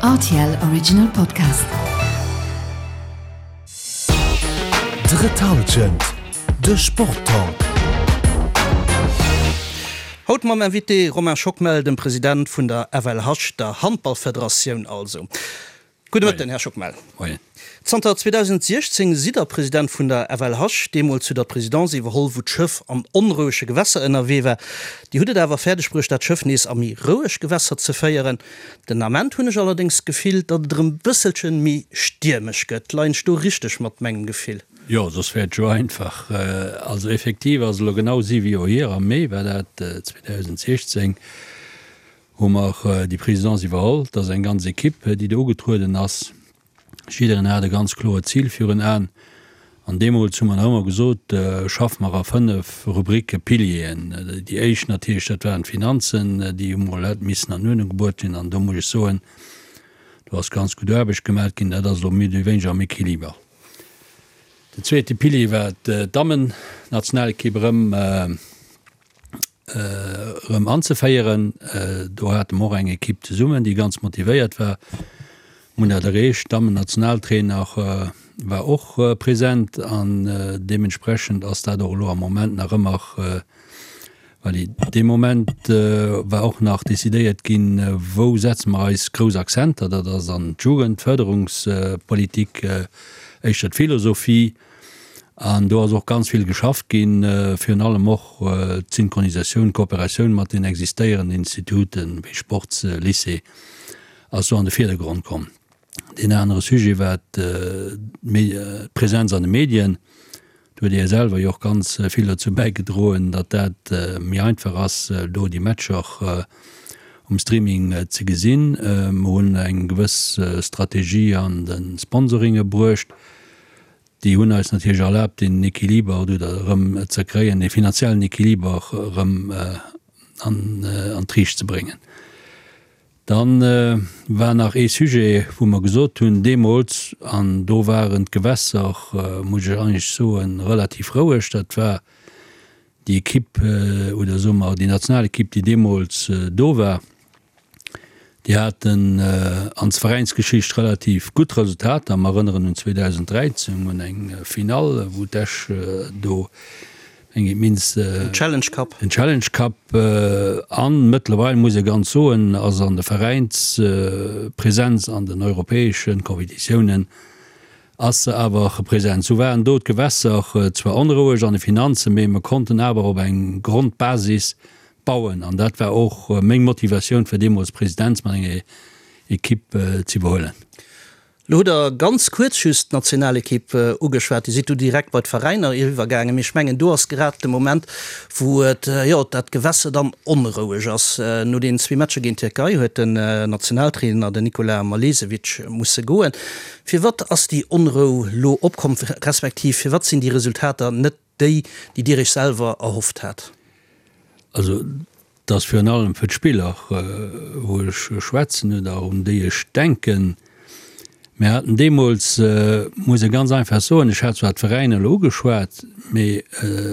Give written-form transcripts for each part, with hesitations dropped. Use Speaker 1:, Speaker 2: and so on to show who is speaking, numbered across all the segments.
Speaker 1: Rtl Original Podcast.
Speaker 2: Drëtt Halschent, de Sporttalk.
Speaker 3: Haut mam Invité Romain Schockmel, dem President vun der FLH, der Handballfederatioun also. Gudde Mëtten, Här Schockmel.
Speaker 4: Moien.
Speaker 3: Zanter 2016 sidd Der President vun der FLH. Deemools hutt Der d'Presidence iwwerholl, wou d'Schëff an onrouege Gewässer ënnerwee war. Dir hutt et awer fäerdeg bruecht, dat Schëff nees a méi roueg Gewässer ze féieren. Den Ament hunn ech allerdéngs d'Gefill, datt et erëm bësselche méi stiermesch gëtt. Leien ech do richteg mat mengem Gefill?
Speaker 4: Jo, soss wär et jo einfach. Also effektiv ass elo genau siwe Joer hier, am Mee war dat, 2016, hu mer déi Présidence iwwerholl. Et ass eng ganz Equipe, déi do ugetrueden ass. Jiddereen hat e ganz kloert Zil virun Aen. An deemools hu mer nach ëmmer gesot, schaffe mer a 5 Rubricke, Pilieren. Déi éischt natierlech, dat waren d'Finanzen, déi hu mol hätt missen an Uerdnung gebruet ginn. An do muss ech soen, do ass ganz gutt Aarbecht gemat ginn. Dat ass elo méi oder wéineger am Equiliber. Den zweete Pilier war d'Dammennationalekipp erëm. erëm anzeféieren. Do hate mer och eng Ekipp zesummen, déi ganz motivéiert war. Mir hunn dat erreecht. D'Dammen-Nationaltrainer war och present an deementsprechend ass dat och elo am Moment nach ëmmer valid. Dee Moment war och nach decidéiert ginn, wou setze mer eis grouss Akzenter. Dat ass an d'Jugendfërderungspolitik, éischter d'Philosophie. An do ass och ganz vill geschafft ginn, virun allem och d'Synchronisatioun, d'Kooperatioun mat den existéierenden Instituten, wéi Sportslycée, ass do an de Virdergrond komm. Deen anere Sujet war d'Präsenz an de Medien. Do huet Dir selwer jo och ganz vill dozou bäigedroen, datt dat méi einfach ass, do déi Matcher um Streaming ze gesinn. Mer hunn eng gewëss Strategie an de Sponsoringe bruecht. Déi hunn eis natierlech erlaabt, deen Equiliber oder erëm ze kréien, dee finanziellen Equiliber erëm an d'Riicht ze bréngen. Da war nach ee Sujet, wou mer gesot hunn deemools, an do waren d'Gewässer, muss ech eigentlech soen, relativ roueg, dat war déi Ekipp oder soe mer déi Nationalekipp, déi deemools do war. Déi haten an Veräinsgeschicht relativ gutt Resultater. Mer erënneren un 2013, un eng Finall, wou d'Esch do eng immens.
Speaker 3: Den Challenge Cup.
Speaker 4: Den Challenge Cup. An mëttlerweil, muss ee ganz soen, ass an der Veräinspresenz an den europäesche Competitiounen ass se awer present. Sou waren do d'Gewässer zwar onroueg an de Finanzen, mee mer konnten awer op eng Grondbasis Bauen. An dat war och meng Motivatioun fir deemools d'Presidenz mat enger Equipe ze iwwerhuelen.
Speaker 3: Lo hutt Der ganz kuerz just d'Nationalequipe ugeschwat. Dir sidd du direkt bei d'Veräiner eriwwergaangen. Mee ech mengen, do ass grad de Moment, wou et, jo, dat Gewässe dann onroueg ass. No deenen zwee Matcher géint d'Tierkei huet den Nationaltrainer, den Nikola Malesevic, musse goen. Firwat ass déi Onrou lo opkomm, respektiv firwat sinn déi Resultater net Déi, déi Dir Iech selwer erhofft hat?
Speaker 4: Also, et ass virun allem fir d'Spiller, wou ech schwätzen oder un déi ech denken. Mir haten deemools, muss ee ganz einfach soen, ech hat zwar d'Veräiner elo ugeschwat, mee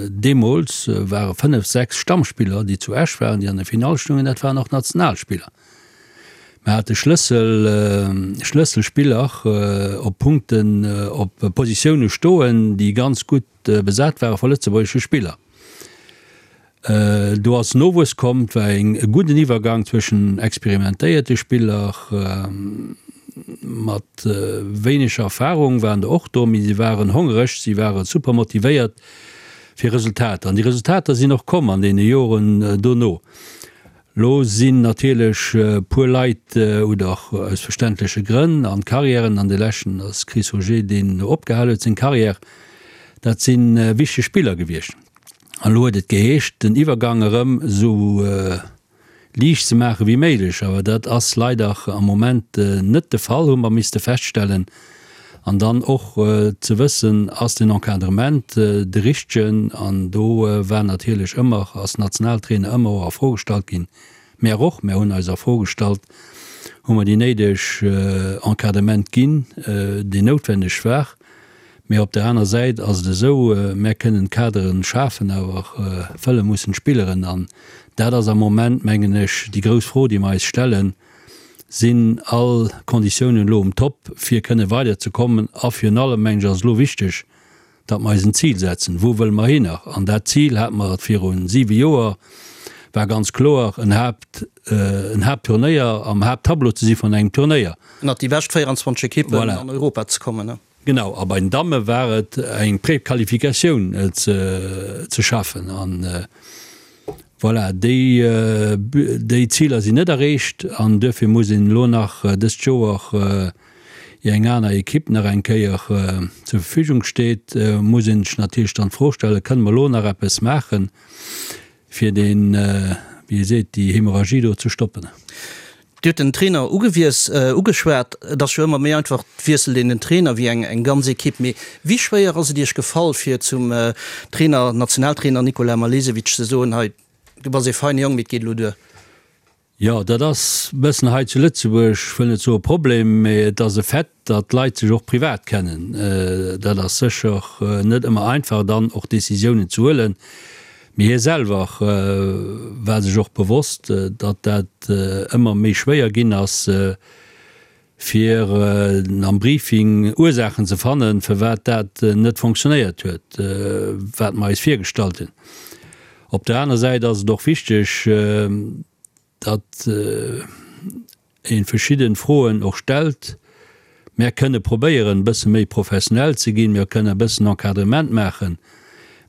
Speaker 4: deemools ware fënnef, sechs Stammspiller, déi zu Esch waren, déi an der Finall stungen, dat waren och Nationalspiller. Mir hate Schlëssel, Schlësselspiller op Punkten, op Positioune stoen, déi ganz gutt besat ware vu lëtzebuergesche Spiller. Do ass Nowuess komm, et war e gudden Iwwergang zwëschen experimentéierte Spiller mat wéineger Erfarung waren der och do, mee si waren hongereg, si ware super motivéiert fir Resultater. An déi Resultater sinn och komm an deene Joren dono. Lo sinn natierlech puer Leit, oder aus verständleche Grënn, an d'Carrièren, an de leschten ass Chris Auger, deen opgehal huet seng Carrière, dat si wichteg Spiller gewiescht. An elo huet et geheescht, den Iwwergang erëm esou liicht ze maache wéi méiglech, awer dat ass leider am Moment net de Fall, hu mer misste feststellen. An dann och ze wëssen, ass den Encadrement de richtegen? An do war natierlech ëmmer, ass Nationaltrainer ëmmer och a Fro gestallt ginn. Mär och, mär hunn eis a Fro gestallt, hu mer déi néideg Encadrement ginn, deen noutwenneg war? Mä op der aner Säit ass et esou, mär kënnen d'Kadere schafen, awer fëlle mussen d'Spilleren. An dat ass am Moment, mengen ech, déi grouss Fro, déi mer eis stellen. Sinn all Konditiounen elo um Top, fir kënne weider ze kommen? A virun allem, mengen ech, ass elo wichteg, datt mer eis en Zil setzen. Wou wëlle mer hinner? An dat Zil hate mer viru siwe Joer, war ganz kloer, en Haapt, en Haaptturnéier, am Haapttableau ze si vun engem Turnéier.
Speaker 3: Ënnert déi bescht 24 Ekippen
Speaker 4: Voilà.
Speaker 3: an Europa ze kommen.
Speaker 4: Genau. A bei den Damme war et eng Prequalifikatioun ze, ze schaffen. An voilà, déi, déi Ziler sinn net erreecht an duerfir muss een elo nach dëst Joer, ier eng aner Ekipp nach eng Kéier zur Verfügung steet, muss een sech natierlech dann d'Fro stellen, Kënne mer elo nach eppes maachen, fir deen, wéi ee seet, déi Hemorragie do ze stoppen?
Speaker 3: Dir hutt den Trainer ugewies, ugeschwat. Et ass jo ëmmer méi einfach, et wiesselt een den Trainer wéi eng eng ganz Ekipp. Mee wéi schwéier ass et Iech gefall, fir zum Trainer, Nationaltrainer Nikola Malesevic ze soen, hei, du bass ee feine Jong, mee et geet elo duer?
Speaker 4: Jo, dat ass e bëssen hei zu Lëtzebuerg, ech wëll net soe Problem, mee et ass e Fait, datt d'Leit sech och privat kennen. Dat ass sécher net ëmmer einfach, dann och Décisiounen ze huelen. Mee hie selwer war sech och bewosst, datt dat ëmmer méi schwéier ginn ass, fir am Briefing Ursaachen ze fannen, firwat dat net fonctionnéiert huet, wat mer eis virgestallt hunn. Op der aner Säit ass et och wichteg, datt ee verschidde Froen och stellt. Mär kënne probéieren, e bësse méi professionell ze ginn, mir kënne e bëssen Encadrement maachen,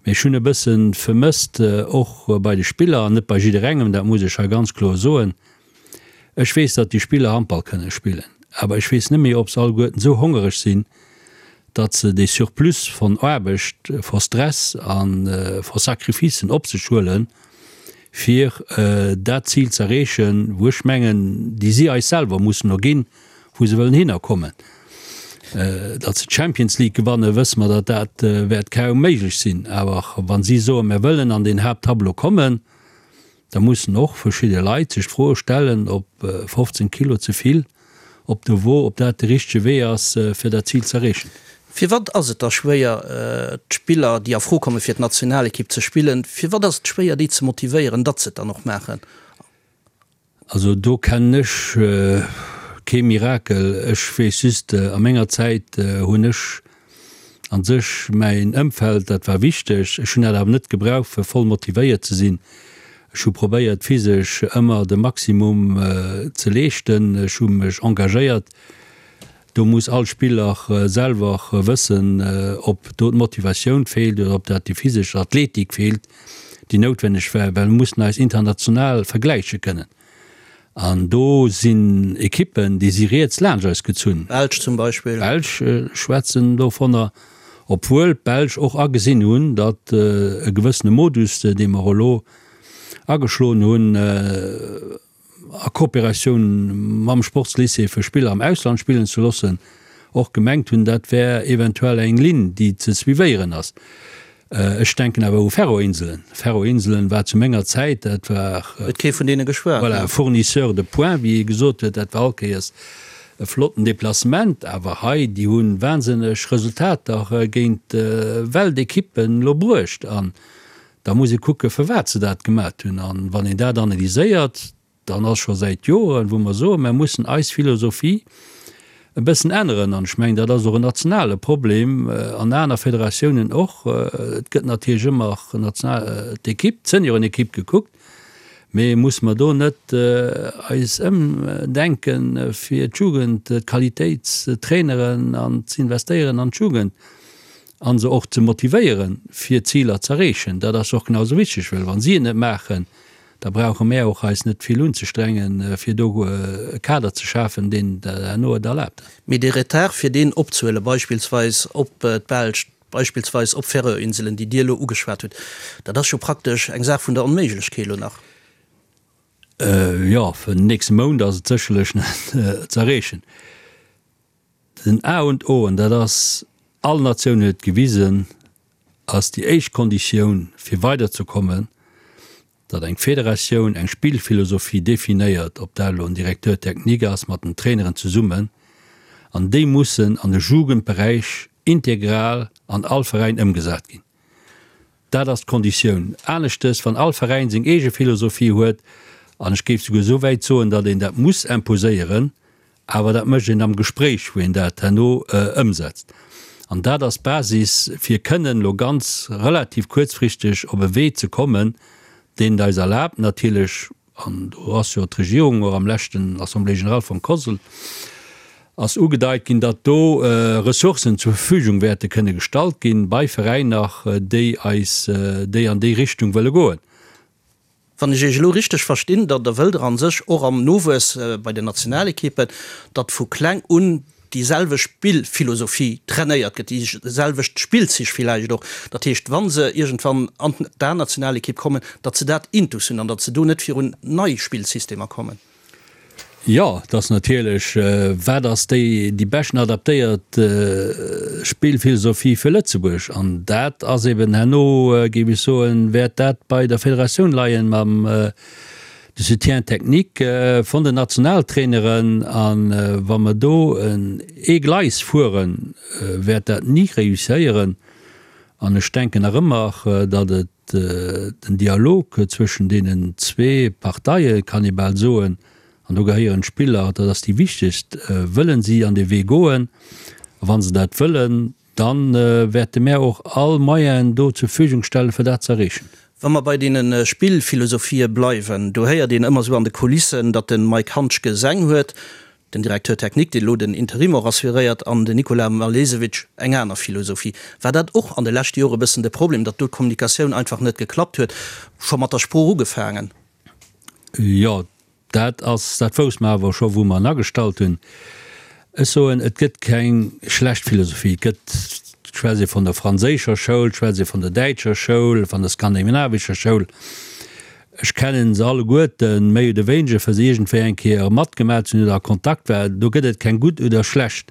Speaker 4: mee ech hunn e bësse vermësst, och bei de Spiller, an net bei jidderengem, dat muss ech hei ganz kloer soen, Ech weess, datt déi Spiller Handball kënne spillen, awer ech weess net méi, ob se alleguerten esou hongereg sinn, datt se dee Surplus von Aarbecht, von Stress a von Sacrificen op sech huelen, fir dat Zil z'erreechen, wou ech mengen, déi si eis selwer mussen erginn, wou se wëllen hinnerkommen. Datt se d'Champions League gewannen, wësse mer, datt dat wäert kaum méiglech sinn. Awer wa si soen, mir wëllen an deen Haapttableau kommen, Da mussen och verschidde Leit sech d'Fro stellen, ob 15 Kilo ze vill op der Wo, ob dat de richtege Wee ass, fir dat Zil z'erreechen.
Speaker 3: Firwat ass et da schwéier, d'Spiller, déi a Fro komme fir d'Nationalekipp ze spillen, firwat ass et schwéier, déi ze motivéieren, datt se et dann och maachen?
Speaker 4: Also do kennen ech kee Mirakel. Ech weess just, a menger Zäit hunn ech a sech mäin Ëmfeld, dat war wichteg. Ech hunn dat awer net gebraucht, fir voll motivéiert ze sinn. Ech hu probéiert, physesch ëmmer de Maximum ze leeschten. Ech hu mech engagéiert. Do muss all Spiller selwer wëssen, ob do d'Motivatioun feelt oder ob dat déi physesch Athletik feelt, déi noutwenneg war, well mir mussen eis international vergläiche kënnen. An do sinn Ekippen, déi si riets laanscht eis gezunn.
Speaker 3: D'Belsch zum Beispill.
Speaker 4: D'Belsch schwätzen dovunner, obwuel d'Belsch och agesinn hunn, datt e gewëssene Modus, dee mer elo ageschloen hunn, a Kooperatioun mam Sportslycée fir Spiller am Ausland spillen ze loossen, och gemengt hunn, dat wär eventuell eng Linn, déi ze suivéieren ass. Ech denken awer u Färöer-Inselen. Färöer-Inselen war zu menger Zäit, dat war.
Speaker 3: Huet kee vun deene geschwat.
Speaker 4: Voilà, Fournisseur de points, wéi ee gesot huet, dat war all Kéiers e flotten Deplacement. Awer hei, déi hu wahnsinneg Resultater géint Weltekippen elo bruecht. An Da muss ee kucken, firwat se dat gemat hunn. A wann een dat analyséiert, dann ass scho säit Joren, wou mer soen, mer mussen eis Philosophie e bëssen änneren. An ech mengen, dat ass och en nationale Problem, an aner Federatiounen och. Et gëtt natierlech ëmmer d'Ekipp, d'Seniorenekipp gekuckt, mee musse mer do net eis ëmdenken, fir d'Jugend, d'Qualitéit ze traineren an ze investéieren an d'Jugend? A se och ze motivéieren, fir Ziler z'erreechen. Dat ass och genau esou wichteg, well wa si et net maachen, da brauche mär och eis net vill unzestrengen, fir do e Kader ze schafen, deen herno et erlaabt.
Speaker 3: Mee dee Retard, fir deen opzehuelen, beispillsweis op d'Belsch, beispillsweis op d'Färöerinselen, déi Dir elo ugeschwat hutt, dat ass jo praktesch eng Saach vun der Onméiglechkeet elo nach.
Speaker 4: Jo, fir den nächste Mount ass et sécherlech net z'erreechen. Den A und O, an dat ass, all Natioun huet et gewisen, ass déi éischt Konditioun fir weiderzekommen, datt eng Federatioun eng Spillphilosophie definéiert, ob dat elo en Directeur technique ass mat den Traineren zesummen, an déi mussen an de Jugendberäich integral an all Veräin ëmgesat ginn. Dat ass d'Konditioun. Aneschtes, wann all Veräin seng eege Philosophie huet. An ech géif souguer esou wäit soen, datt een dat muss imposéieren, awer dat mécht een am Gespréich, wou een dat herno ëmsetzt. An dat ass d'Basis, fir kënnen elo ganz relativ kuerzfristeg op e Wee ze kommen, deen et eis erlaabt natierlech, an do ass jo d'Regierung och am leschten Assemblée générale vum COSL ass ugedeit ginn, datt do Ressourcen zur Verfügung wäerte kënne gestallt ginn bei Veräiner, déi eis, déi an déi Richtung wëlle goen.
Speaker 3: Wann ech Iech elo richteg verstinn, da da wëllt Der a sech och am Nowuess bei den Nationalekippen, datt vu kleng un déi selwecht Spillphilosophie trainéiert gëtt, déi selwecht Spillzich villäicht och. Dat heescht, wa se iergendwann an d'A-Nationalekipp kommen, datt se dat intus hunn an datt se do net virun nei Spillsystemer kommen.
Speaker 4: Jo, et ass natierlech, wat ass déi déi beschten adaptéiert Spillphilosophie fir Lëtzebuerg? An dat ass eben herno, géif ech soen, wäert dat bei der Federatioun leien mam de Soutien technique vun den Nationaltraineren. A wa mer do ee Gleis fueren, wäert dat ni réusséieren. An ech denken nach ëmmer, datt et Den Dialog zwëschen deenen zwee Parteie kann ee bal soen, an do gehéieren d'Spiller, dat ass déi wichtegst, wëllen si an dee Wee goen? A wa se dat wëllen, da wäerte mär och all Moyenen do zur Verfügung stellen, fir dat ze erreechen.
Speaker 3: Wa mer bei deene Spillphilosophië bleiwen, do héiert een ëmmer esou an de Kulissen, datt de Mike Handschke seng huet, Den Directeur technique, deen elo den Interim och assuréiert, an den Nikola Malesevic eng aner Philosophie. War dat och an de leschte Jore e bëssen de Problem, datt do d'Kommunikatioun einfach net geklappt huet, scho mat der Sprooch ugefaangen?
Speaker 4: Jo, dat ass, dat wousste mer awer scho wou mer en agestallt hunn. Ech soen, et gëtt keng schlecht Philosophie. Et gëtt, et schwätzt ee vun der franséischer Schoul, et schwätzt ee vun der däitscher Schoul, vun der skandinavischer Schoul. Ech kennen se alleguerten, méi oder wéineger, fir se iergendwéi eng Kéier matgemaach ze hunn oder a Kontakt war. Do gëtt et keng gutt oder schlecht.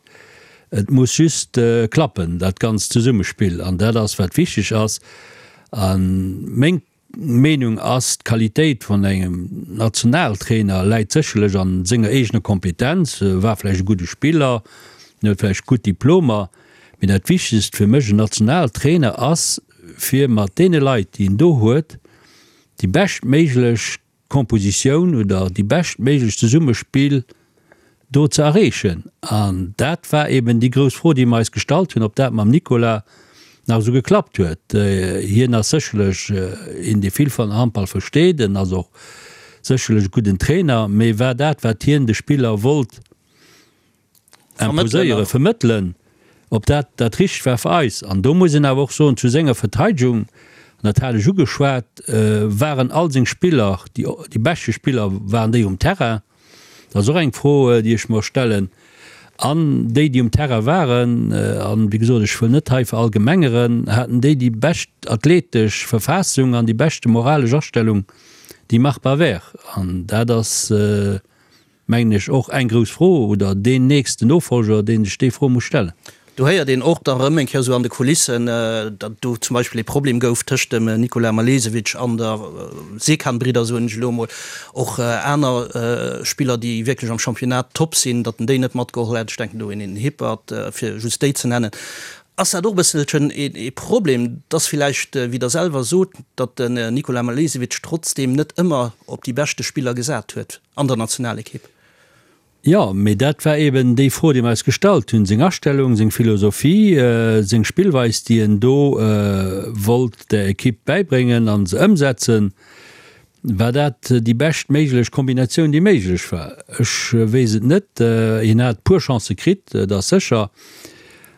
Speaker 4: Et muss just klappen, dat ganzt Zesummespill. An dat ass, wat wichteg ass. A meng Meenung ass, d'Qualitéit vun engem Nationaltrainer läit sécherlech a senger eegener Kompetenz. E war vläicht e gudde Spiller, en huet vläicht gutt Diplomer, mee dat Wichtegst fir mech, en Nationaltrainer ass, fir mat deene Leit, déi en do huet, déi beschtméiglech Kompositioun oder déi beschtméiglech Zesummespill do ze erreechen. An dat war eben déi grouss Fro, déi mer eis gestallt hunn, ob dat mam Nicolas nach esou geklappt huet. Hien ass sécherlech een, dee vill vun Handball versteet, en ass och sécherlech e gudden Trainer, mee war dat, wat hien de Spiller wollt, imposéieren, vermëttelen, ob dat dat Richtegt war fir eis. An do muss een awer och soen, zu senger Verteidegung, an dat hat ech ugeschwat, waren all seng Spiller, déi, déi beschte Spiller waren déi um Terrain. Dat ass och eng Fro, déi ech mer stellen. An déi, déi um Terrain waren, an wéi gesot, ech wëll net hei verallgemengeren, haten déi déi bescht athletesch Verfassung an déi beschte moralesch Astellung, déi machbar wär. An dat ass, mengen ech, och eng grouss Fro, oder deen nächsten Nofolger, dee sech déi Fro muss stellen.
Speaker 3: Do héiert een och da rëm eng Kéier esou an de Kulissen, datt do zum Beispill ee Problem gouf tëscht dem Nikola Malesevic an der Sekan-Bridder, soen ech elo emol, och aner Spiller, déi wierklech am Championnat top sinn, datt en déi net matgeholl hätt. Ech denken do un een Hippert, fir just déi ze nennen. Ass dat och e bësselchen ee Problem, dass villäicht, wéi Der selwer sot, datt den Nikola Malesevic trotzdeem net ëmmer op déi beschte Spiller gesat huet? An der Nationalekipp.
Speaker 4: Jo, mee dat war eben déi Fro, déi mer eis gestallt hunn. Seng Astellung, seng Philosophie, seng Spillweis, déi en do wollt der Ekipp bäibréngen a se ëmsetzen, war dat déi bescht méiglech Kombinatioun, déi méiglech war? Ech weess et net. Hien hat puer Chancë kritt, dat ass sécher.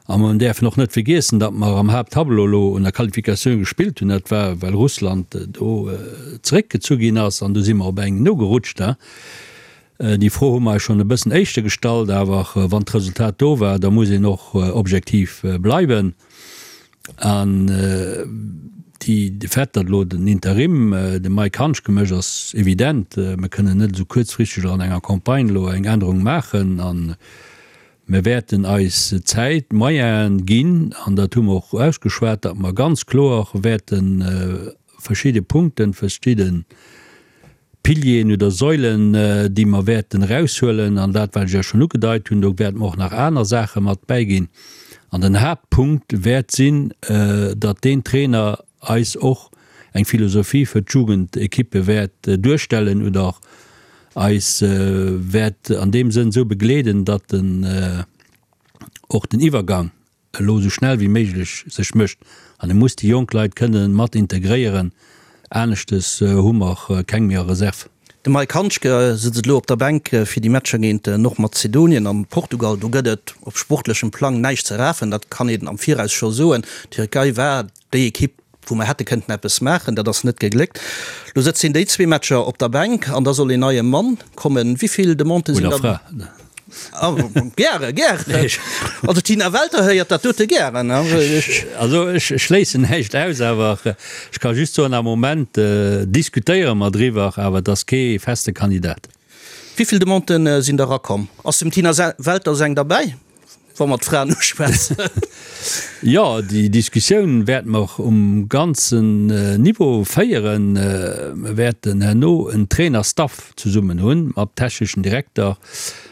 Speaker 4: A mer däerfen och net vergiessen, datt mer am Haapttableau elo un der Qualifikatioun gespillt hunn. Dat war, well Russland do zeréckgezu ginn ass an do si mer op eng nogerutscht. Déi Fro hu mer eis schonn e bëssen éischter gestallt, awer wann d'Resultat do war, da muss een och objektiv bleiwen. An déi, de Fait, datt elo den Interim de Mike Hanschke mécht, ass evident. Mer kënnen net esou kuerzfristeg an enger Campagne elo eng Ännerung maachen. An Mir wäerten eis Zäit, Moyenen ginn, an dat hu mer och ausgeschwat, datt mer ganz kloer wäerte verschidde Punkten, verschidde Pilieren oder Säulen, déi mer wäerten eraushuelen, an dat, wat ech Iech schonn ugedeit hunn, do wäerte mer och nach aner Saache mat bäiginn. An den Haaptpunkt wäert sinn, datt deen Trainer eis och. eng Philosophie fir d'Jugendekippe wäert duerstellen oder eis wäert an deem Sënn esou begleeden, datt en och den Iwwergang elo esou schnell wéi méiglech sech mécht an e muss déi jonk Leit kënne mat integréieren, aneschtes hu mer keng méi a Reserve.
Speaker 3: De Mike Handschke sëtzt elo op der Bänk fir déi Matcher géint Nordmazedonien an Portugal. Do gëtt et op sportlechem Plang näischt ze rafen, dat kann een am Viraus scho soen. D'Tierkei war déi Ekipp, wou mer hätte kënnten eppes maachen, dat ass net gegléckt. Lo sëtzt hien déi zwee Matcher op der Bänk an da soll een neie Mann kommen. Wéi vill Demandë sinn
Speaker 4: Oder
Speaker 3: da?
Speaker 4: Fra.
Speaker 3: Gäre, gären. Also d'Tina Welter héiert dat dote gären.
Speaker 4: Also ech schléissen näischt aus, awer ech ka just soen, am Moment diskutéiere mer driwwer, awer et ass kee feste Kandidat.
Speaker 3: Wéi vill Demandë sinn da rakomm? Ass dem Tina Welter seng derbäi? Wa mer d'Fraen uschwätzen.
Speaker 4: Jo, déi Diskussioun wäerte mer um ganzen Niveau féieren. Mer wäerten herno en Trainerstaff zesummen hunn, mat techneschen Direkter,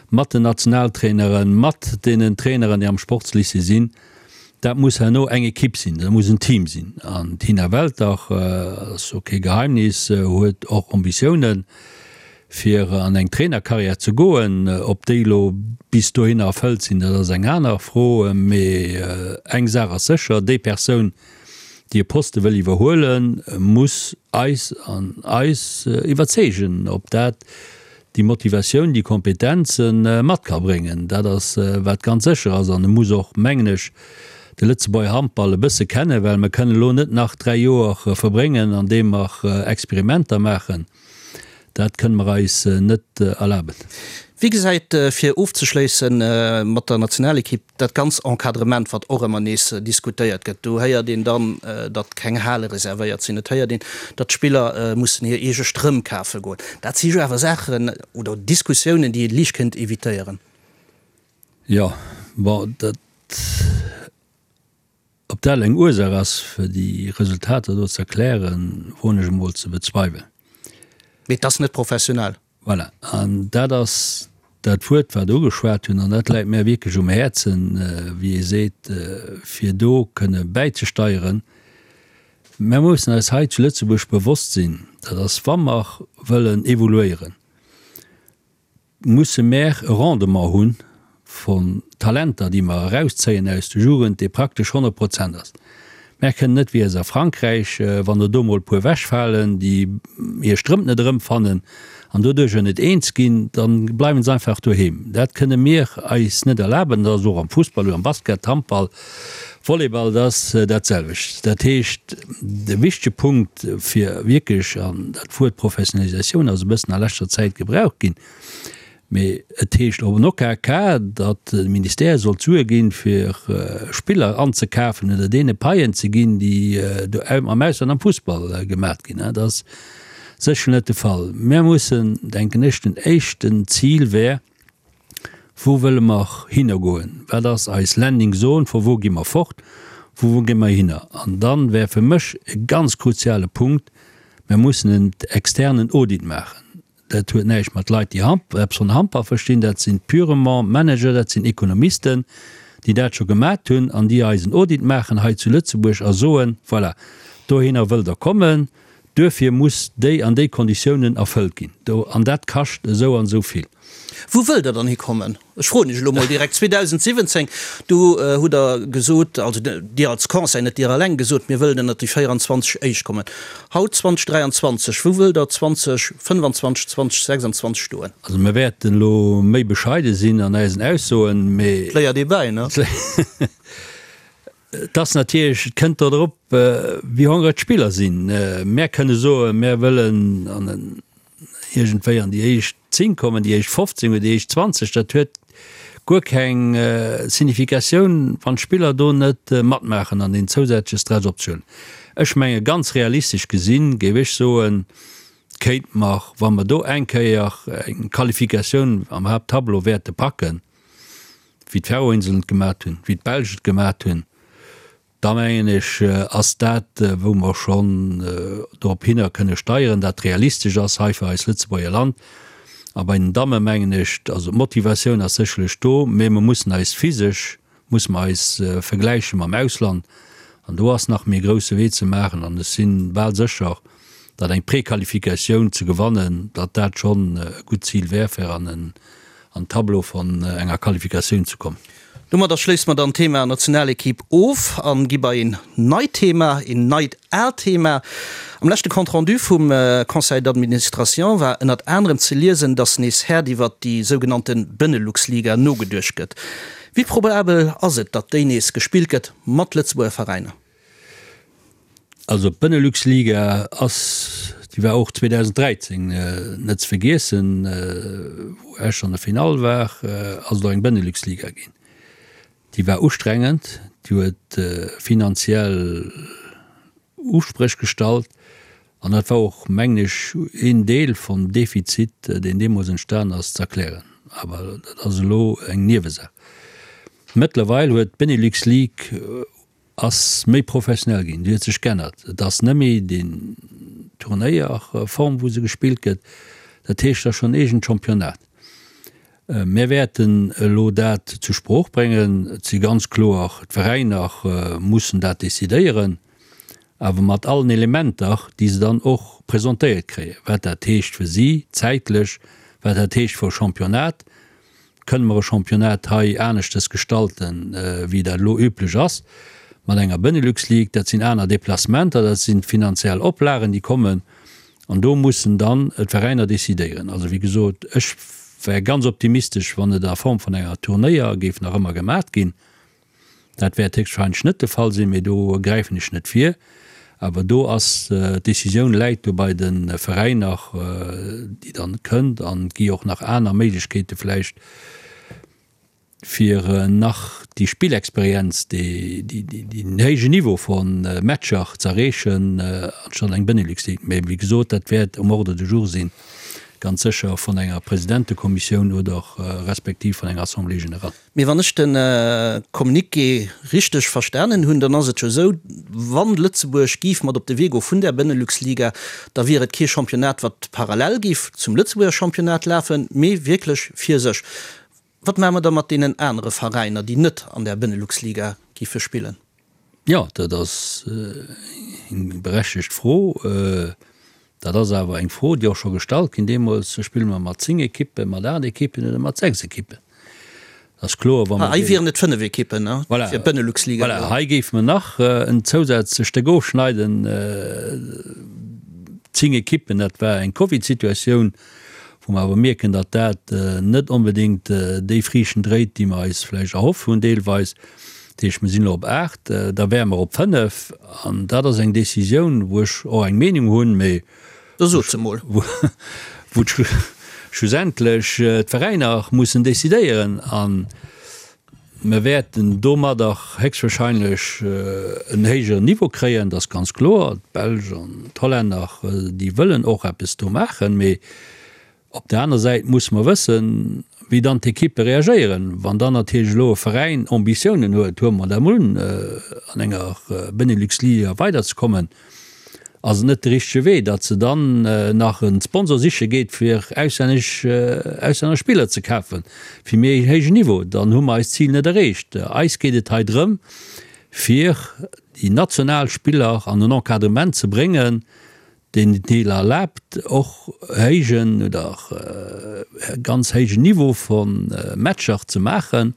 Speaker 4: mat den Nationaltraineren, mat deenen Traineren, déi am Sportslycée sinn. Dat muss herno eng Ekipp sinn, dat muss en Team sinn. An d'Tina Welter, ass jo kee Geheimnis, huet och Ambitiounen. Fir an eng Trainerkarriär ze goen, ob déi elo bis dohinner erfëllt sinn, dat ass eng aner Fro. Mee eng Saach ass sécher, Déi Persoun, déi e Poste wëll iwwerhuelen, muss eis an eis iwwerzeegen, ob dat déi Motivatioun, déi Kompetenze mat ka bréngen. Dat ass, wat ganz sécher ass. An e muss och, mengen ech, de Lëtzebuerger Handball e bësse kennen, well mer kënnen elo net nach 3 Joer verbréngen, andeem mer Experimenter maachen. Dat kënne mer eis net erlaben.
Speaker 3: Wéi gesäit, fir ofzeschléisse mat der Nationalekipp, dat ganz Encadrement, wat och ëmmer nees diskutéiert gëtt? Do héiert een dann, datt keng Hale reservéiert sinn, et héiert een, datt d'Spiller mussen hir eege Strëmp kafe goen. Dat si jo awer Saachen oder Diskussiounen, déi ee liicht kéint evitéieren.
Speaker 4: Jo, bon, dat. Ob dat eng Ursaach ass, fir déi Resultater do ze erklären, woen ech emol ze bezweiwelen.
Speaker 3: Mee et ass net professionell.
Speaker 4: Voilà, an dat ass dat Wuert, wat Der ugeschwat hunn, an dat läit mär wierklech um Häerzen, wéi ee seet, fir do kënne bäizesteieren. Mär mussen eis hei zu Lëtzebuerg bewosst sinn, dat ass, wa mer wëllen evoluéieren, musse mär e Rendement hu vun Talenter, déi mer erauszéien aus der Jugend, dee praktesch 100 Prozent ass. Mär kënnen net wéi a Frankräich, wann der do mol e puer ewechfalen, déi hir Strëmp net erëmfannen an doduercher net eens ginn, da bleiwen se einfach doheem. Dat kënne mir eis net erlaben. Dat ass och am Fussball oder am Basket, Handball, Volleyball, dat ass dat selwecht. Dat heescht, de wichtege Punkt fir wierklech, an dat Wuert Professionalisatioun ass e bëssen a leschter Zäit gebraucht ginn, mee et heescht och en OKK, datt de Ministère soll d'Sue ginn, fir Spiller anzekafen oder deene Paien ze ginn, déi do am Ausland am Fussball gemaat ginn. Dat ass sécher net de Fall. Mir mussen, denken ech, den éischten Zil wär, Wou wëlle mer hinner goen? Wat ass eis Landing Zone? Vu wou gi mer fort? Vu wou gi mer hinner? An dann wär fir mech e ganz kruziale Punkt, Mer mussen en externen Audit maachen. Dat huet näischt mat Leit, déi eppes vun Handball verstinn, dat sinn purement Manager, dat sinn Ekonomisten, déi dat scho gemat hunn an déi eis en Audit maachen hei zu Lëtzebuerg a soen, Voilà, dohinner wëllt Der kommen, duerfir muss déi an déi Konditiounen erfëllt ginn. Do, an dat kascht esou an esou vill.
Speaker 3: Wou wëllt Der dann hikommen? Ech froen Iech elo mol direkt. 2017, do hutt Der gesot, also Dir als Conseil, net Dir eleng, gesot, mir wëllen ënnert déi 24 Éischt kommen. Haut, 2023, wou wëllt Der 2025, 2026 stoen?
Speaker 4: Also mir wäerten elo méi bescheide sinn an eisen Aussoen, mee.
Speaker 3: Et léiert ee bäi, ne?
Speaker 4: Et ass natierlech, et kënnt do drop, wéi hongreg d'Spiller sinn. Mär kënne soen, mär wëllen an en iergendwéi an déi éischt 10 kommen, déi éischt 15 oder déi éischt 20. Dat huet guer keng Significatioun, wann d'Spiller do net matmaachen an deen zousätzleche Stress op sech huelen. Ech menge ganz realistesch gesinn, géif ech soen, kéinte mer, wa mer do eng Kéier eng Qualifikatioun am Haapttableau wäerte packen, wéi d'Färöinseln et gemat hunn, wéi d'Belsch et gemat hunn, da mengen ech, ass dat, wou mer schonn dorop hinner kënne steieren, dat realistesch ass hei fir eist Lëtzebuerger Land. A bei den Damme mengen ech, also d'Motivatioun ass sécherlech do, mä mer mussen eis physesch, musse mer eis vergläiche mam Ausland. An do ass nach méi e grousse Wee ze maachen an ech si bal sécher, datt eng Prequalifikatioun ze gewannen, datt dat schonn e gutt Zil wär, fir an en an Tableau von enger Qualifikatioun ze kommen.
Speaker 3: Domadder schléisse mer dann d'Thema Nationalequipe of an gi bei een neit Thema, een neit aalt Thema. Am leschte Compte rendu vum Conseil d'administration war ënnert anerem ze liesen, dass nees haart iwwert déi sougenannte Benelux-Liga nogeduecht gëtt. Wéi probabel ass et, datt déi nees gespillt gëtt mat Lëtzebuerger Veräiner?
Speaker 4: Also d'Benelux-Liga ass, déi war och 2013 net ze vergiessen, wou Esch an der Finall war, ass et och eng Benelux-Liga ginn. Déi war ustrengend, déi huet finanziell Uspréch gestallt an dat war och, mengen ech, een Deel vum Defizit, deen deemools entstan ass, ze erklären. Awer dat ass elo eng Niewesaach. Mëttlerweil huet d'Benelux League ass méi professionell ginn, déi huet sech g'ännert. Et ass net méi déi Turnéierform, wou se gespillt gëtt. Dat heescht, et ass schonn en eegent Championnat. Mir wäerten elo dat zur Sprooch bréngen. Et si ganz kloer, d'Veräiner mussen dat decidéieren, awer mat allen Elementer, déi se dann och presentéiert kréien, wat dat heescht fir si zäitlech, wat dat heescht fir e Championnat. Kënne mer e Championnat hei aneschtes gestalten, wéi dat elo üblech ass mat enger Benelux League? Dat sinn aner Déplacementer, dat sinn finanziell Oplagen, déi kommen. An do mussen dann d'Veräiner decidéieren. Also, wéi gesot, ech wär ganz optimistesch, wann et a Form vun enger Turnéier géif nach ëmmer gemat ginn. Dat wäert héchstwahrscheinlech net de Fall sinn, mee do gräifen ech net vir. Awer do ass, d'Decisioun läit do bei de Veräiner, déi dann kënnt. An et gi och nach aner Méiglechkeete vläicht, fir nach déi Spillexperienz, deen héijen Niveau vu Matcher ze erreechen, anstatt eng Benelux League. Mee wéi gesot, dat wäert um Ordre du jour sinn, ganz sécher vun enger Presidentekommissioun oder respektiv vun enger Assemblée générale.
Speaker 3: Mee wann ech de Communiqué richteg verstanen hunn, dann ass et jo esou, wann Lëtzebuerg giff mat op de Wee goe vun där Benelux-Liga, da wier et kee Championnat, wat parallel giff zum Lëtzebuerger Championnat lafen, mee wierklech fir sech. Wat maache mer da mat deenen anere Veräiner, déi net an där Benelux-Liga giffe spillen?
Speaker 4: Jo, dat ass eng berechtegt Fro. Dat ass awer eng Fro, déi och scho gestallt ginn deemools, Spille mer mat 10 Ekippen, mat 8 Ekippen oder mat 6 Ekippen? Dat ass kloer, wa mer.
Speaker 3: Hei wieren et 5 Ekippen, ne, fir d'Benelux-Liga.
Speaker 4: Voilà, hei géife mer nach en zousätzlecht Stéck ofschneiden, 10 Ekippen, dat war eng Covid-Situatioun, wou mer awer mierken, datt dat net onbedéngt déi Friichten dréit, déi mer eis vläicht erhoff hunn deelweis. Dat heescht, mer sinn elo op 8, da wäre mer op 5. An dat ass eng Décisioun, wou ech och eng Meenung hunn, mee
Speaker 3: Da sot se mol.
Speaker 4: wou schlussendlech d'Veräiner mussen décidéieren. A mer wäerten domadder héchstwahrscheinlech en héijeren Niveau kréien, dat ass ganz kloer. D'Belsch an d'Hollänner, déi wëllen och eppes do maachen, mee Op der aner Säit musse mer wëssen, wéi dann d'Ekippe reagéieren. Wann dann natierlech elo e Veräin Ambitiounen huet, huele mer dat emol un, an enger Benelux-Liga weiderzekommen, ass et net de richtege Wee, datt se dann nach e Sponsor siche geet, fir auslännesch auslänner Spiller ze kafen, fir méi en héijen Niveau. Dann hu mer eist Zil net erreecht. Eis geet et hei drëm, fir déi national Spiller an en Encadrement ze bréngen, deen et Deel erlaabt, och héijen oder ganz héijen Niveau vu Matcher ze maachen,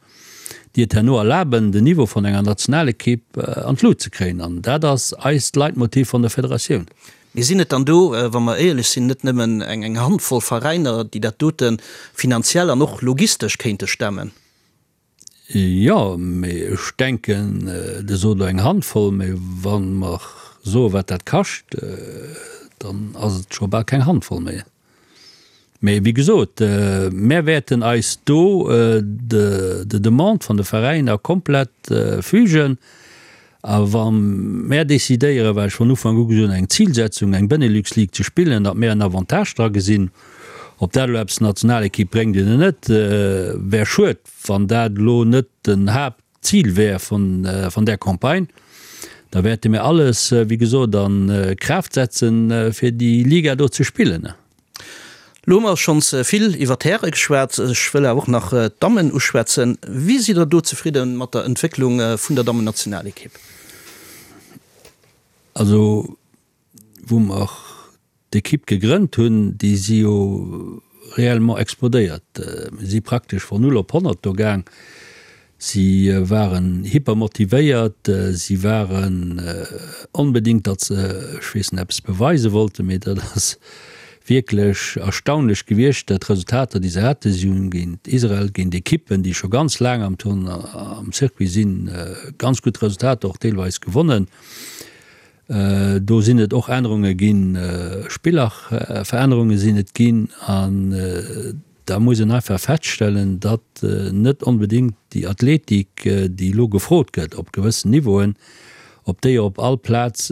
Speaker 4: déi et herno erlaben, den Niveau vun enger Nationalekipp an d'Lut ze kréien. An dat ass eist Leitmotiv vun der Federatioun.
Speaker 3: Mee sinn et dann do, wa mer éierlech sinn, net nëmmen eng Handvoll Veräiner, déi dat dote finanziell an och logistesch kéinte stemmen?
Speaker 4: Jo, mee ech denken, Dir sot elo eng Handvoll, mee wa mer soe wat dat kascht, dann ass et scho bal keng Handvoll méi. Mee wéi gesot, mär wäerten eis do de Demande vun de Veräiner komplett fügen. A wa mär decidéieren, wat ech von Ufank u gesot hunn, eng Zilsetzung, eng Benelux League ze spillen, datt mär en Avantage dra gesinn, ob dat elo eppes der Nationalekipp bréngt oder net, wär schued, wann dat elo net den Haaptzil wär vun där Campagne. Da wäerte mir alles, wéi gesot, a Kraaft setzen, fir déi Liga do ze spillen.
Speaker 3: Lo hu mer schonns vill iwwer d'Häre geschwat, ech wëll awer och nach d'Dammen uschwätzen. Wéi sidd Der do zefridde mat der Entwécklung vun der Dammennationalekipp?
Speaker 4: Also wou mer d'Ekipp gegrënnt hunn, déi si jo réellement explodéiert. Mir si praktesch von null op 100 do gaang. Si waren hypermotivéiert, si waren onbedéngt, datt se, ech weess net, eppes beweise wollten, mee dat ass wierklech erstaunlech gewiescht, dat d'Resultater, déi se haten. Si hunn géint Israel, géint Ekippen, déi scho ganz laang am Turn, am Circuit sinn, ganz gutt Resultater och deelweis gewonnen. Do sinn et och Ännerunge ginn, Spillerverännerunge sinn et ginn an da muss een einfach feststellen, datt net onbedéngt déi Athletik, déi elo gefrot gëtt op gewëssen Niveauen, ob déi op all Plaz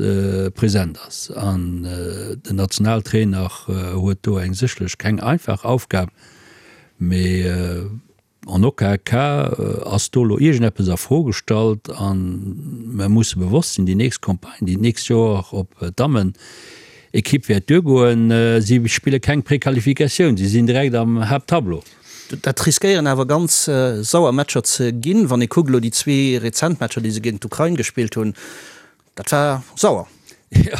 Speaker 4: present ass. An den Nationaltrainer huet do eng sécherlech keng einfach Aufgab, mee en aucun cas ass do elo iergendeppes a Fro gestallt. A mer musse bewosst sinn, déi nächst Campagne, déi d'nächst Joer op d'Dammen-Ekipp wäert duergoen, si spille keng Prequalifikatioun, si sinn direkt am Haapttableau.
Speaker 3: Dat riskéieren awer ganz sauer Matcher ze ginn. Wann ee kuckt elo déi zwee rezent Matcher, déi se géint d'Ukrain gespillt hunn, dat war sauer.
Speaker 4: Jo,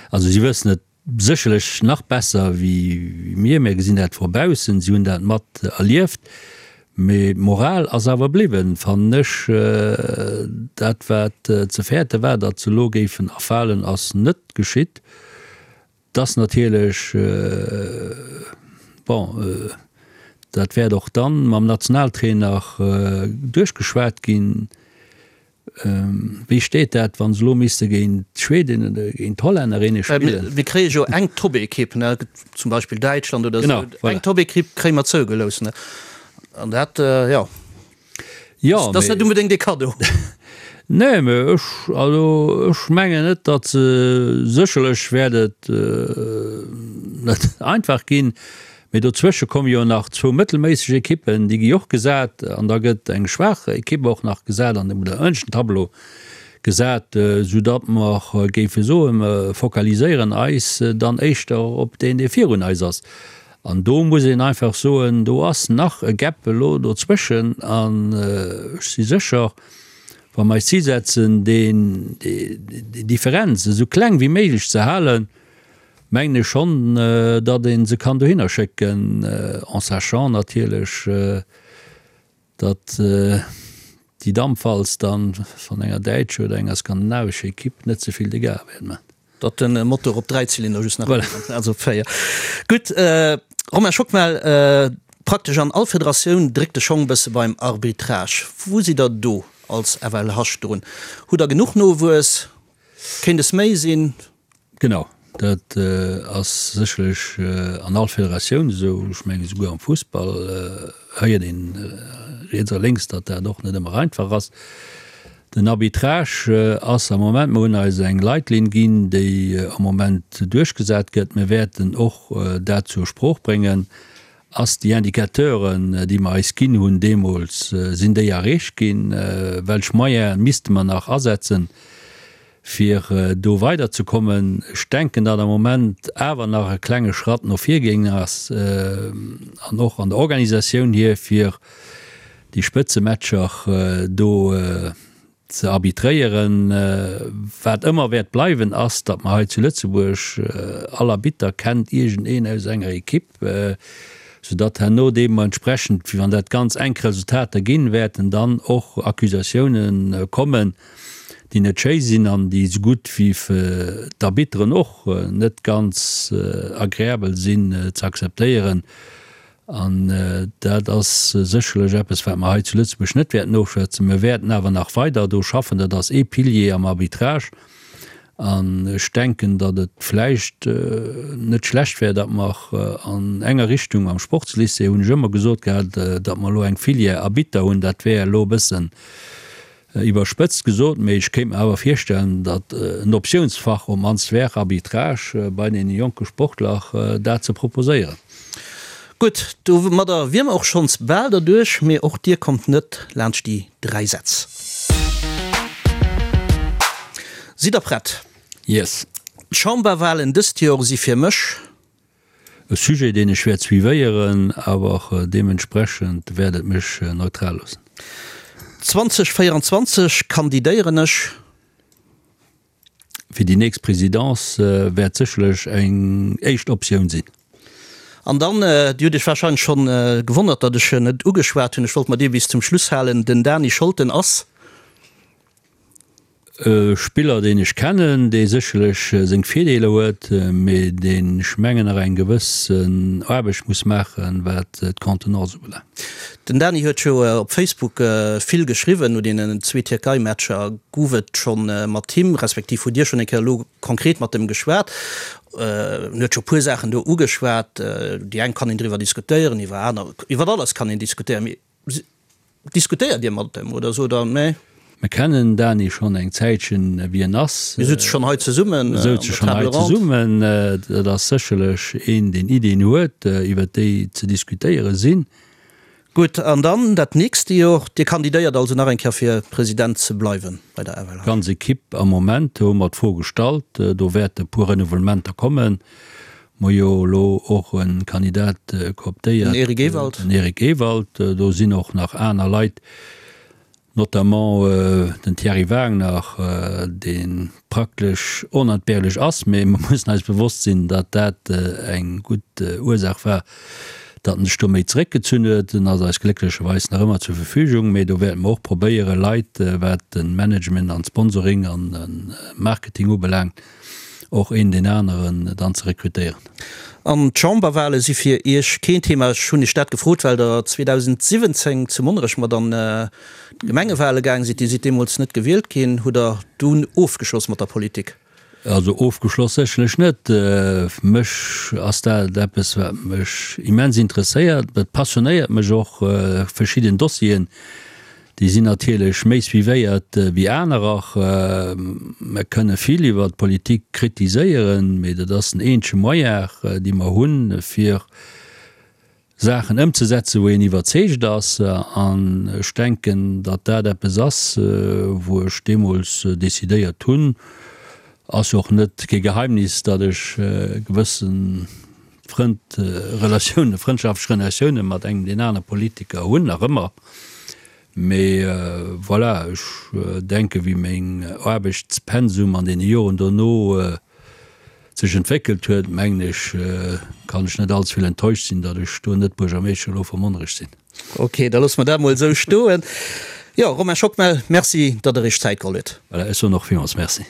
Speaker 4: also si wëssen et sécherlech nach besser wéi mir. Mir gesinn dat vu baussen, si hunn dat mat erlieft. Mee d'Moral ass awer bliwwen, fannen ech. Dat wat ze fäerte war, datt se elo géifen erfalen, ass net geschitt. 't ass natierlech, bon, dat wäert och dann mam Nationaltrainer duerchgeschwat ginn, wéi steet dat, wa se elo misste géint d'Schwedin oder géint d'Hollännerinne spillen.
Speaker 3: Mir kréie jo eng Top-Ekipp, zum Beispill Däitschland oder esou, eng Top-Ekipp kréie mer zougelooss, an dat, jo.
Speaker 4: Jo,
Speaker 3: Dat ass net unbedéngt ee Kaddo.
Speaker 4: Nee, mä ech, also ech mengen net, datt se, sécherlech wäert et net einfach ginn, mä dozwësche komme jo nach zwou mëttelméisseg Ekippen, déi gi och gesat an da gëtt eng schwaach Ekipp och nach gesat an oder ënneschten Tableau gesat, soudatt mer géife soen, mer focaliséieren eis dann éischter op deen, dee virun eis ass. An do muss een einfach soen, do ass nach e Gap elo dozwëschen. An ech si sécher, wa mer eis Zil setzen, deen, déi Differenz esou kleng wéi méiglech ze halen, mengen ech schonn, datt ee se kann dohinner schécken, en sachant natierlech, datt déi Dampwalz dann van enger däitscher oder enger skandinavescher Equipe net ze vill Dégâts wäert man.
Speaker 3: Datt den Motor op 3 Zylinder just nach voilà. Also op 4. Gutt, Romain Schockmel, praktesch an all Federatioun dréckt de Schong bësse beim Arbitrage. Wou sidd der do als FLH drun? Hutt der genuch Nowuess? Kéint es méi sinn?
Speaker 4: Genau, dat ass sécherlech an all Federatioun esou. Ech mengen, esouguer am Fussball héiert een riets a lénks, datt dat och net ëmmer einfach ass. Den Arbitrage ass am Moment, mer hunn eis eng Leitlinn ginn, déi am Moment duerchgesat gëtt. Mir wäerten och dat zur Sprooch bréngen. Ass déi Indicateuren, déi mer eis ginn hunn deemools, sinn déi erreecht ginn? Welch Moyene misste mer nach asetzen, fir do weiderzekommen. Ech denken, datt am Moment awer nach e klenge Schratt no vir gaangen ass an och an der Organisatioun hier, fir déi Spëtzematcher do ze arbitréieren. Wat ëmmer wäert bleiwen, ass, datt mer hei zu Lëtzebuerg, all Arbitter kennt iergendeen aus enger Ekipp, soudatt herno deementsprechend, wann dat ganz enk Resultater ginn, wäerten dann och Accusatiounen kommen, déi net schéi sinn an déi esou gutt wéi fir d'Arbitteren och net ganz agreabel sinn ze akzeptéieren. An dat ass sécherlech eppes, wat mer hei zu Lëtzebuerg net wäerten ofschwätzen. Mir wäerten awer nach weider do schaffen. Dat ass ee Pilier am Arbitrage. An ech denken, datt et vläicht net schlecht wär, datt mer an enger Richtung am Sportslycée, hunn ech ëmmer gesot gehat, datt mer elo eng Filière Arbitter hunn. Dat wär elo e bëssen Iwwerspëtzt gesot, mee ech kéint mer awer virstellen, datt en Optiounsfach op mannst wär, Arbitrage, bei deene jonke Sportler dat ze proposéieren.
Speaker 3: Gutt, domadder wier mer och schonns bal derduerch, mee och dir kommt net laanscht déi 3 Sätz. Sidd der prett?
Speaker 4: Yes.
Speaker 3: D'Chamberwahlen dëst Jor si fir mech.
Speaker 4: E Sujet, deen ech wäert suivéieren, awer deementsprechend wäert et mech neutral loossen.
Speaker 3: 2024 kandidéieren ech.
Speaker 4: Fir déi nächst Présidence wäert sécherlech eng éischt Optioun sinn.
Speaker 3: An dann, Dir hutt Iech wahrscheinlech schonn gewonnert, datt ech en net ugeschwat hunn, ech wollt mer dee bis zum Schluss halen, den Dany Scholten ass.
Speaker 4: E Spiller, deen ech kennen, dee sécherlech seng Virdeeler huet, mee deen, ech mengen, nach eng gewëssen Aarbecht muss maachen, wat d'Contenance ubelaangt.
Speaker 3: Den Dany huet jo op Facebook vill geschriwwen no deenen zwee Tierkei-Matcher. Gouf et schonn mat him, respektiv hutt Dir schonn eng Kéier elo konkret mat em geschwat? En huet scho puer Saachen do ugeschwat. Déi eng kann een driwwer diskutéieren, iwwer aner, iwwer alles kann een diskutéieren, mee Diskutéiert Dir mat em oder sot Der, nee?
Speaker 4: Mir kennen den Dany schonn eng Zäitchen, wéi en ass.
Speaker 3: Mir souze schonn hei zesummen
Speaker 4: Mir souze schonn hei zesummen. Dat ass sécherlech een, deen Iddien huet, iwwer déi ze diskutéiere sinn.
Speaker 3: Gutt, an dann dat nächste Jor. Dir kandidéiert also nach eng Kéier fir President ze bleiwen bei der FLH?
Speaker 4: D'ganz Ekipp am Moment hu mer d'Fro gestallt. Do wäerte e puer Renouvellementer kommen. Mer jo elo och e Kandidat cooptéiert,
Speaker 3: Den Eric Ewald.
Speaker 4: Den Eric Ewald. Do sinn och nach aner Leit, notamment den Thierry Wagner, dee praktesch onentbehrlech ass. Mee mer mussen eis bewosst sinn, datt dat eng gutt Ursaach war, datt en sech do méi zeréckgezunn huet. En ass eis glécklecherweis nach ëmmer zur Verfügung. Mee do wäerte mer och probéieren, Leit, wat de Management an d'Sponsoring an de Marketing ubelaangt, och een deen aneren dann ze rekrutéieren.
Speaker 3: An d'Chamberwahle si fir Iech keen Thema? Ech hunn Iech dat gefrot, well Der 2017 zu Monnerech mat an d'Gemengewahle gaang sidd. Dir sidd deemools net gewielt ginn. Hutt Der dunn ofgeschloss mat der Politik?
Speaker 4: Also ofgeschloss sécherlech net. Mech ass dat eppes, wat mech immens interesséiert. Et passionéiert mech och, verschidden Dossieren, Déi sinn natierlech méi suivéiert wéi anerer. Mer kënne vill iwwer d'Politik kritiséieren, mee dat ass den eenzege Moyen, dee mer hunn, fir Saachen ëmzesetzen, wou een iwwerzeegt ass. An ech denken, datt dat eppes ass, wou ech deemools decidéiert hunn, ass jo och net kee Geheimnis, datt ech gewësse Frënd, Relatiounen, frëndschaftlech Relatioune mat engem deen anere Politiker hunn, nach ëmmer. Mee voilà, ech denke wéi meng Aarbechtspensum an deene Joren dono sech entwéckelt huet, mengen ech, kann ech net allze vill enttäuscht sinn, datt ech do net Buergermeeschter elo vu Monnerech sinn.
Speaker 3: Ok, da loosse mer dat mol esou stoen. Jo, Romain Schockmel, Merci, datt Der Iech Zäit geholl hutt.
Speaker 4: Voilà, ech soen och villmools Merci.